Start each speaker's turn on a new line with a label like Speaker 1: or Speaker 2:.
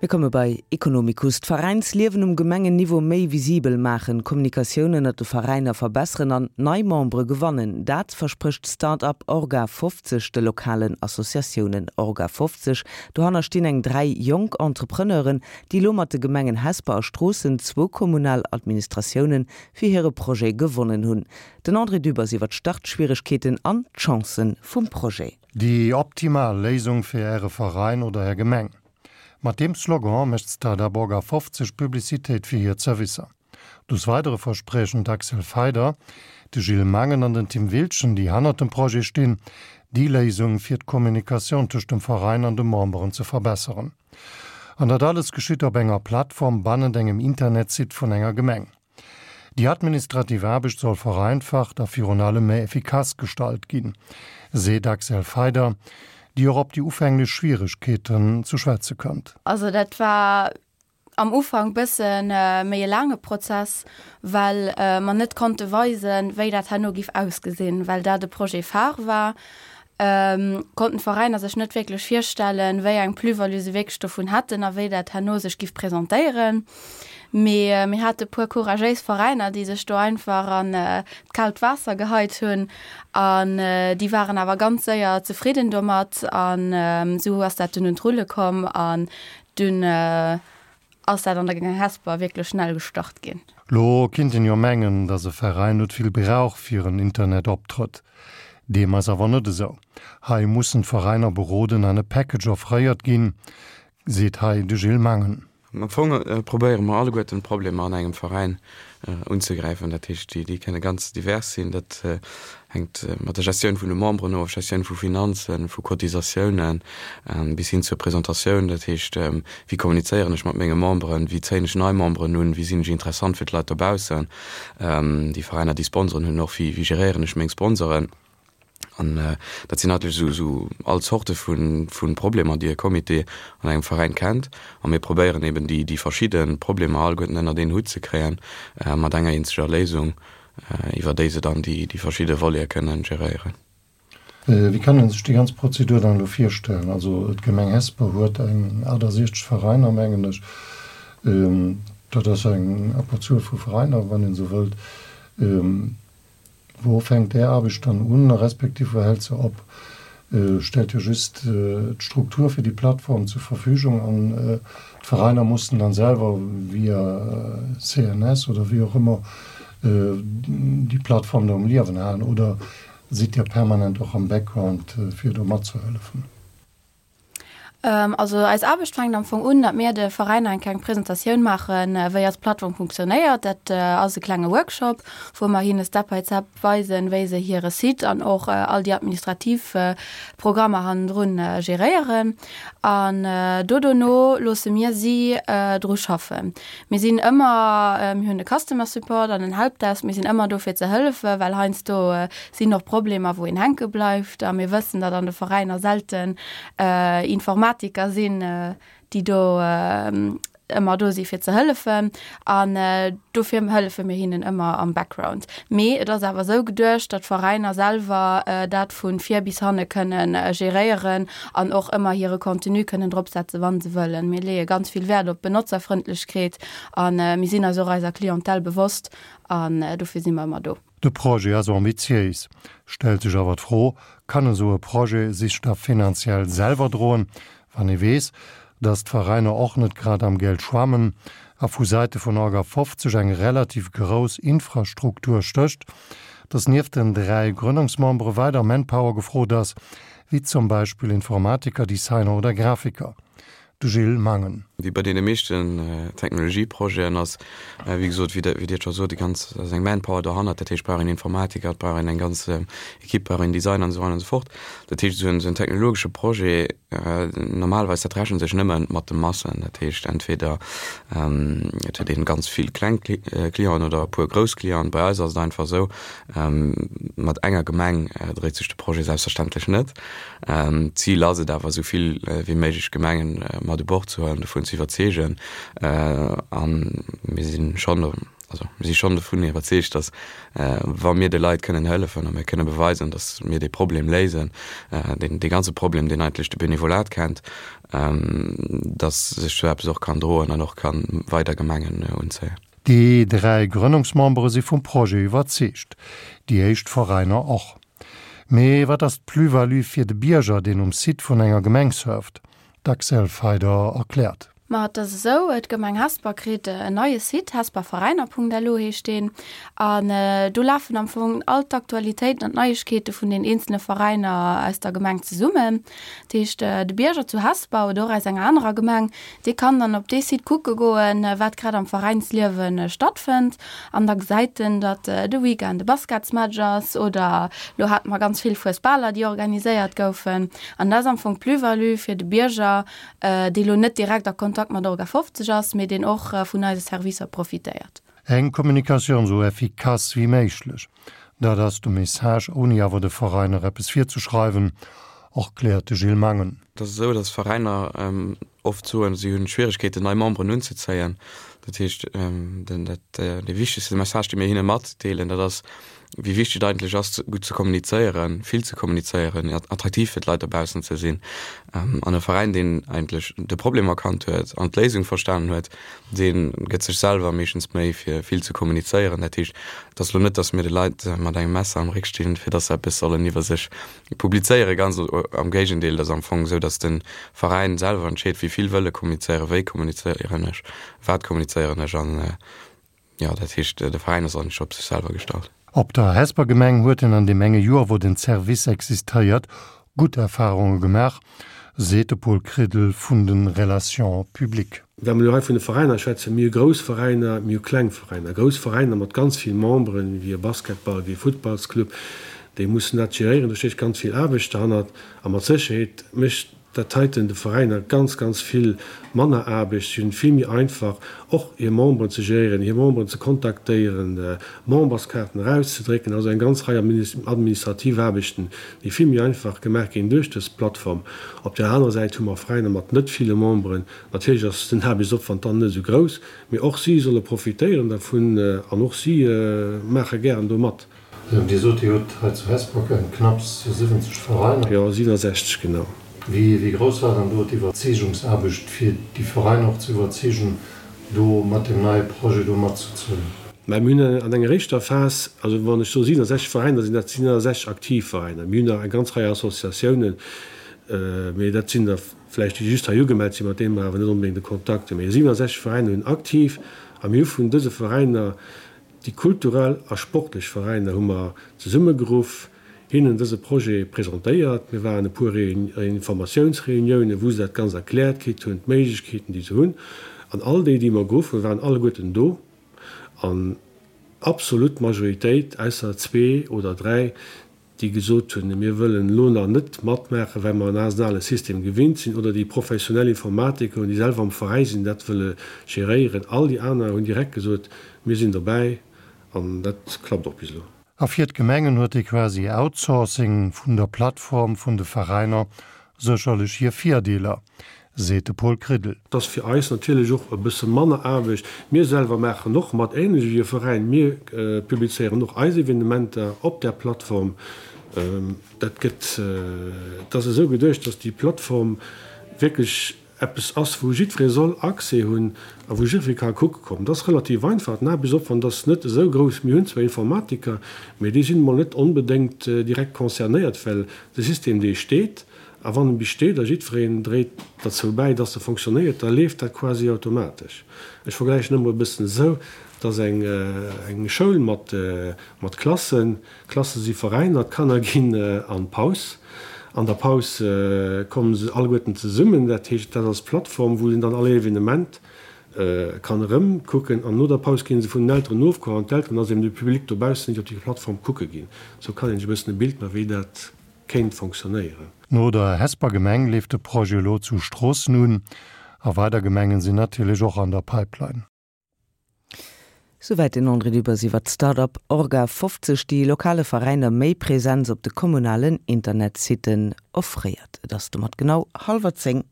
Speaker 1: Mir komme bei Economicus. D'Veräinsliewen um Gemengenniveau méi visibel maachen, d'Kommunikatioun ënnert de Veräiner verbesseren an nei Membere gewannen, dat versprécht d'Start-up Orga 50 de lokalen Associatiounen. Orga 50, dohanner stinn eng 3 jonk Entrepreneuren, déi elo mat de Gemengen Hesper a Stroossen zwou kommunal Administratiounen fir hire Projet gewonnen hunn. Den André Dübbers iwwer d'Startschwieregkeeten an d'Chancen vum Projet.
Speaker 2: Déi optimal Léisung fir Äre Veräin oder Är Gemeng. Mat deem Slogan mécht d'Start-up Orga 50 Publicitéit fir hir Zerwisser. Des Weidere verspriechen d'Axel Feider, de Gilles Mangen an den Tim Wildgen, déi hannert dem Projet stinn, déi Léisung fir d'Kommunikatioun tëscht dem Veräin an de Memberen ze verbesseren. An dat alles geschitt op enger Plattform bannent engem Internetsite vun enger Gemeng. Déi administrativ Aarbecht soll vereinfacht a virun allem méi effikass gestalt ginn, seet d'Axel Feider, déi och op déi ufänglech Schwieregkeeten ze schwätze kënnt.
Speaker 3: Also dat war am Ufank bësse méi e laange Prozess, well mer net konnte weisen, wéi dat herno giff ausgesinn, well dat e Projet phare war. Konnten d'Veräiner sech net wierklech virstellen, wéi eng Plus-value se wierklech dovun hätten a wéi dat herno sech giff presentéieren. Mee mir hate puer couragéis Veräiner, déi sech do einfach an d'kaalt Waasser geheit hunn an déi waren awer ganz séier zefridden domat an esou ass dat dunn un d'Rulle komm an dunn ass dat an der Gemeng Hesper wierklech schnell gestart ginn.
Speaker 2: Lo kinnt een jo mengen, dass e Veräin net vill brauch fir en Internetoptrëtt. Deem ass awer net esou. Hei mussen d'Veräiner beroden an e Package offréiert ginn, seet hei de Gilles Mangen.
Speaker 4: Am Fong probéiere mer alleguerten d'Problemer an engem Veräin unzegräifen. Dat heescht, déi kënne ganz divers sinn. Dat hänkt mat der Gestioun vun de Memberen of, Gestioun vu Finanzen, vu Cotisatiounen, bis hin zur Presentatioun. Dat heescht, wéi kommunizéieren ech mat menge Memberen, wéi zéien ech nei Memberen un, wéi sinn ech interessant fir d'Leit dobaussen, déi Veräiner, déi Sponsoren hunn och, wéi geréieren ech meng Sponsoren. An dat sinn eigentlech esou esou all Zorte vu vu Problemer, déi e Comité an engem Veräin kennt. A mir probéieren eben déi déi verschidde Problemer alleguerten ënnert een Hutt ze kréien, mat enger eenzeger Léisung, iwwer déi se dann déi déi verschidde Volete kënnen geréieren.
Speaker 2: Wéi kann een sech déi ganz Prozedur dann elo virstellen? Also d'Gemeng Hesper huet eng 68 Veräiner, mengen ech. Dat ass eng Abberzuel vu Veräiner, wann een esou wëllt. Wou fänkt Är Aarbecht dann un, respektiv wou hält se op? Stellt Dir just d'Struktur fir déi Plattform zur Verfügung an d'Veräiner mussen dann selwer via CNS oder wéi och ëmmer déi Plattform do um Liewen halen oder sidd Dir permanent och am Background fir do matzehëllefen?
Speaker 3: Also eis Aarbecht fänkt am Fong un, datt mir de Veräiner eng kleng Presentatioun maachen, wéi eis Plattform funktionéiert. Dat ass e klenge Workshop, wou mer hinne Step by Step weisen, wéi se hire Site an och all déi administrativ Programmer hannendrun geréieren. An do dono loosse mir si dru schaffen. Mir sinn ëmmer, mir hunn e Customer Support an en Helpdesk, mir sinn ëmmer do fir ze hëllefen, well heiansdo sinn och Problemer wou een hänke bleift a mir wëssen, datt an de Veräiner selten Informatiker sinn, déi do ëmmer do si fir ze hëllefen an dofir hëllefe mir hinnen ëmmer am Background. Mee et ass awer esou geduecht, datt d'Veräiner selwer dat vu vir bis hanne kënnen geréieren an och ëmmer hire Contenu kënnen dropsetzen, wa se wëllen. Mir leeë ganz vill Wäert op Benotzerfrëndlechkeet a mir sinn eis och eiser Clientèle bewosst an dofir si mer ëmmer do.
Speaker 2: De Projet ass ambitiéis, stellt sech awer d'Fro, Kann esou e Projet sich da finanziell selwer droen, wann ee weess, datt d'Veräiner och net grad am Geld schwammen a vu Säite vun Orga 50 eng relativ grouss Infrastruktur stécht, datt nieft den 3 Grënnungsmembere weider Manpower gefrot ass, wéi zum Beispill Informatiker, Designer oder Grafiker. De Gilles Mangen.
Speaker 4: Wéi bei deene meeschten Technologieprojeten ass, wéi gesot, wéi Der, wéi Dir et scho sot, déi ganz, ass eng Manpower dohannert. Dat heescht, et brauch een Informatiker, et brauch een eng ganz Equipe, et brauch een Designer an esou weider an esou fort. Dat heescht, esou en, esou en technologesche Projet, normalerweis, dat rechent sech nëmme mat de Massen. Dat heescht, entweder et huet een ganz vill kleng Clienten oder e puer grouss Clienten. Bei eis ass et einfach esou, Mat enger Gemeng dréit sech de Projet selbstverständlech net. D'Zil ass et awer, esou vill wéi méiglech Gemengen mat u Bord ze huelen, dovun ze iwwerzeegen. A mir si schonn. Also mir si schonn dovun iwwerzeegt, datt wa mir de Leit kënnen hëllefen a mir kënne beweisen, datt mir dee Problem léisen, deen dee ganze Problem, deen eigentlech de Benevolat kennt, datt sech sou eppes och kann droen an och ka weider Gemengen unzéien.
Speaker 2: Déi 3 Grënnungsmembere si vum Projet iwwerzeegt, déi éischt Veräiner och. Mee wat ass d'Plus-value fir de Bierger, deen um Site vun enger Gemeng surft? D'Axelle Feyder erkläert.
Speaker 3: Ma et ass esou, d'Gemeng Hesper kritt en neie Site, hesperveräiner.lu heescht deen, an do lafen am Fong all d'Aktualitéiten an d'Neiegkeete vun den eenzele Veräiner aus der Gemeng zesummen. Dat heescht, de Bierger zu Hesper oder och aus enger anerer Gemeng, dee kann dann op dee Site kucke goen, wat grad am Veräinsliewe stattfënnt. An da gesäit en, datt de Weekend e Basketsmatch ass oder elo hate mer ganz vill Fuesbaler, déi organiséiert goufen. An dat ass am Fong d'Plus-value fir de Bierger, dee lo net direkt a Kontakt mat Orga 50 ass, mee deen och vun eise Servicer profitéiert.
Speaker 2: Eng Kommunikatioun esou effikass wéi méiglech, dat ass de Message, ouni awer de Veräiner eppes virzeschreiwen, erkläert de Gilles Mangen.
Speaker 4: Et ass esou, datt Veräiner oft soen, si hunn Schwieregkeeten, nei Memberen unzezéien. Dat heescht, dee wichtegste Message, dee mir hinne matdeelen, dat ass, wéi wichteg et eigentlech ass, gutt ze kommunizéieren, vill ze kommunizéieren, attraktiv fir d'Leit dobaussen ze sinn. An e Veräin, deen eigentlech de Problem erkannt huet an d'Léisung verstanen huet, dee gëtt sech selwer meeschtens Méi, fir vill ze kommunizéieren. Dat heescht, et ass elo net, datt mir de Leit mat engem Messer am Réck stinn, fir datt se eppes sollen iwwer sech publizéieren. Ganz am Géigendeel, et ass am Fong esou, datt de Veräin selwer entscheet, wéi vill wëll e kommunizéieren, wéi kommunizéieren ech, wat kommunizéieren ech. An Jo, dat heescht, de Veräin ass eigentlech op sech selwer gestallt.
Speaker 2: Op der Hesper Gemeng huet en an deem enge Joer, wou den Service existéiert, gutt Erfarunge gemaach, seet de Paul Kridel vun de Relations publiques.
Speaker 5: Wa mer elo hei vun de Veräiner schwätzen, mir hu grouss Veräiner, mir hu kleng Veräiner. Grouss Veräiner mat ganz vill Memberen, wéi e Basketball, wéi e Futtballsclub, déi mussen dat geréieren, do stécht ganz vill Aarbecht derhannert a mat Sécherheet mécht Dat heiten de Veräiner ganz, ganz vill manner Aarbecht. Si hunn et vill méi einfach, och hir Memberen ze geréieren, hir Memberen ze kontaktéieren, Memberskaarten erauszedrécken. Also eng ganz Rei administrativ Aarbechten, déi vill méi einfach gemaach ginn duerch dës Plattform. Op där anerer Säit hu mer Veräiner mat net ville Memberen. Natierlech ass den Aarbechtsopwand dann net esou grouss, mee och si solle profitéieren dervun an och si maache gären do mat.
Speaker 2: Dir sot, Dir hutt hei zu Hesper knapps 70 Veräiner.
Speaker 5: Jo, 67 genau.
Speaker 2: Wéi grouss war dann do d'Iwwerzeegungsaarbecht, fir déi Veräiner och ze iwwerzeegen, do mat deem neie Projet do matzezéien?
Speaker 5: Mä mir hunn an enger éischter Phas, also wann ech soe 67 Veräiner, sinn dat 67 aktiv Veräiner. Mir hunn nach eng ganz Rei Associatiounen, mee dat sinn der vläicht, déi just hei ugemellt sinn, mat deene mer awer net onbedéngt e Kontakt hunn. Mee 67 Veräiner hunn aktiv a mir hu vun dëse Veräiner Déi kulturell a sportlech Veräiner hu mer zesummegeruff, hinnen dëse Projet presentéiert. Mir waren e puer Informatiounsreuniounen, wou se dat Ganzt erkläert kritt hunn, d'Méiglechkeeten, déi se hunn. An all déi, déi mer geruff hunn, waren alleguerten do. An absolut Majoritéit, ausser zwee oder dräi, déi gesot hunn, mir wëllen elo nach net matmaachen, well mer en asen ale System gewinnt sinn, oder déi professionell Informatiker hunn, déi selwer am Veräi sinn, dat wëlle geréieren. All déi aner hunn direkt gesot, mir sinn dobäi, an dat klappt och bis elo.
Speaker 2: A fir d'Gemengen huet dee quasi Outsourcing vun der Plattform vun de Veräiner sécherlech hir Virdeeler, seet de Paul Kridel.
Speaker 5: Et ass fir eis natierlech och e bësse manner Aarbecht. Mir selwer maachen och mat, ähnlech ewéi e Veräin. Mir publizéieren och eis Evenementer op där Plattform. Dat gëtt, et ass esou geduecht, dass déi Plattform wierklech eppes ass, wou jiddweree soll Accès hunn a wou jiddweree ka kucke kommen. Et ass relativ einfach, den Aarbechtsopwand ass net esou grouss. Mir hunn zwar Informatiker, mee déi sinn emol net onbedéngt direkt concernéiert, well de System, dee steet, A wann en bis steet a jiddwereen dréit derzou bäi, dass e fonctionnéiert, da leeft dat quasi automatesch. Ech vergläichen ëmmer e bëssen esou, et ass eng eng Schoul mat mat Klassen, d'Klasse si Veräiner, d'Kanner ginn an d'Paus. An der Paus komme se alleguerten zesummen, dat heescht, dat ass d'Plattform, wou een dann all Evenement kann erëmkucken. An no der Paus gi se vun den Elteren ofgeholl an d'Elteren, also eben de Public dobaussen, déi op déi Plattform kucke ginn. Esou kann een sech e bëssen e Bild maachen, wéi dat kéint fonctionnéieren.
Speaker 2: No der Hesper Gemeng leeft de Projet elo zu Stroossen un a weider Gemengen sinn natierlech och an der Pipeline.
Speaker 1: Souwäit den André Dübbers iwwer d'Start-up Orga 50, déi lokale Veräiner méi Präsenz op de kommunalen Internetsitten offréiert. Et ass domat genau hallwer 10.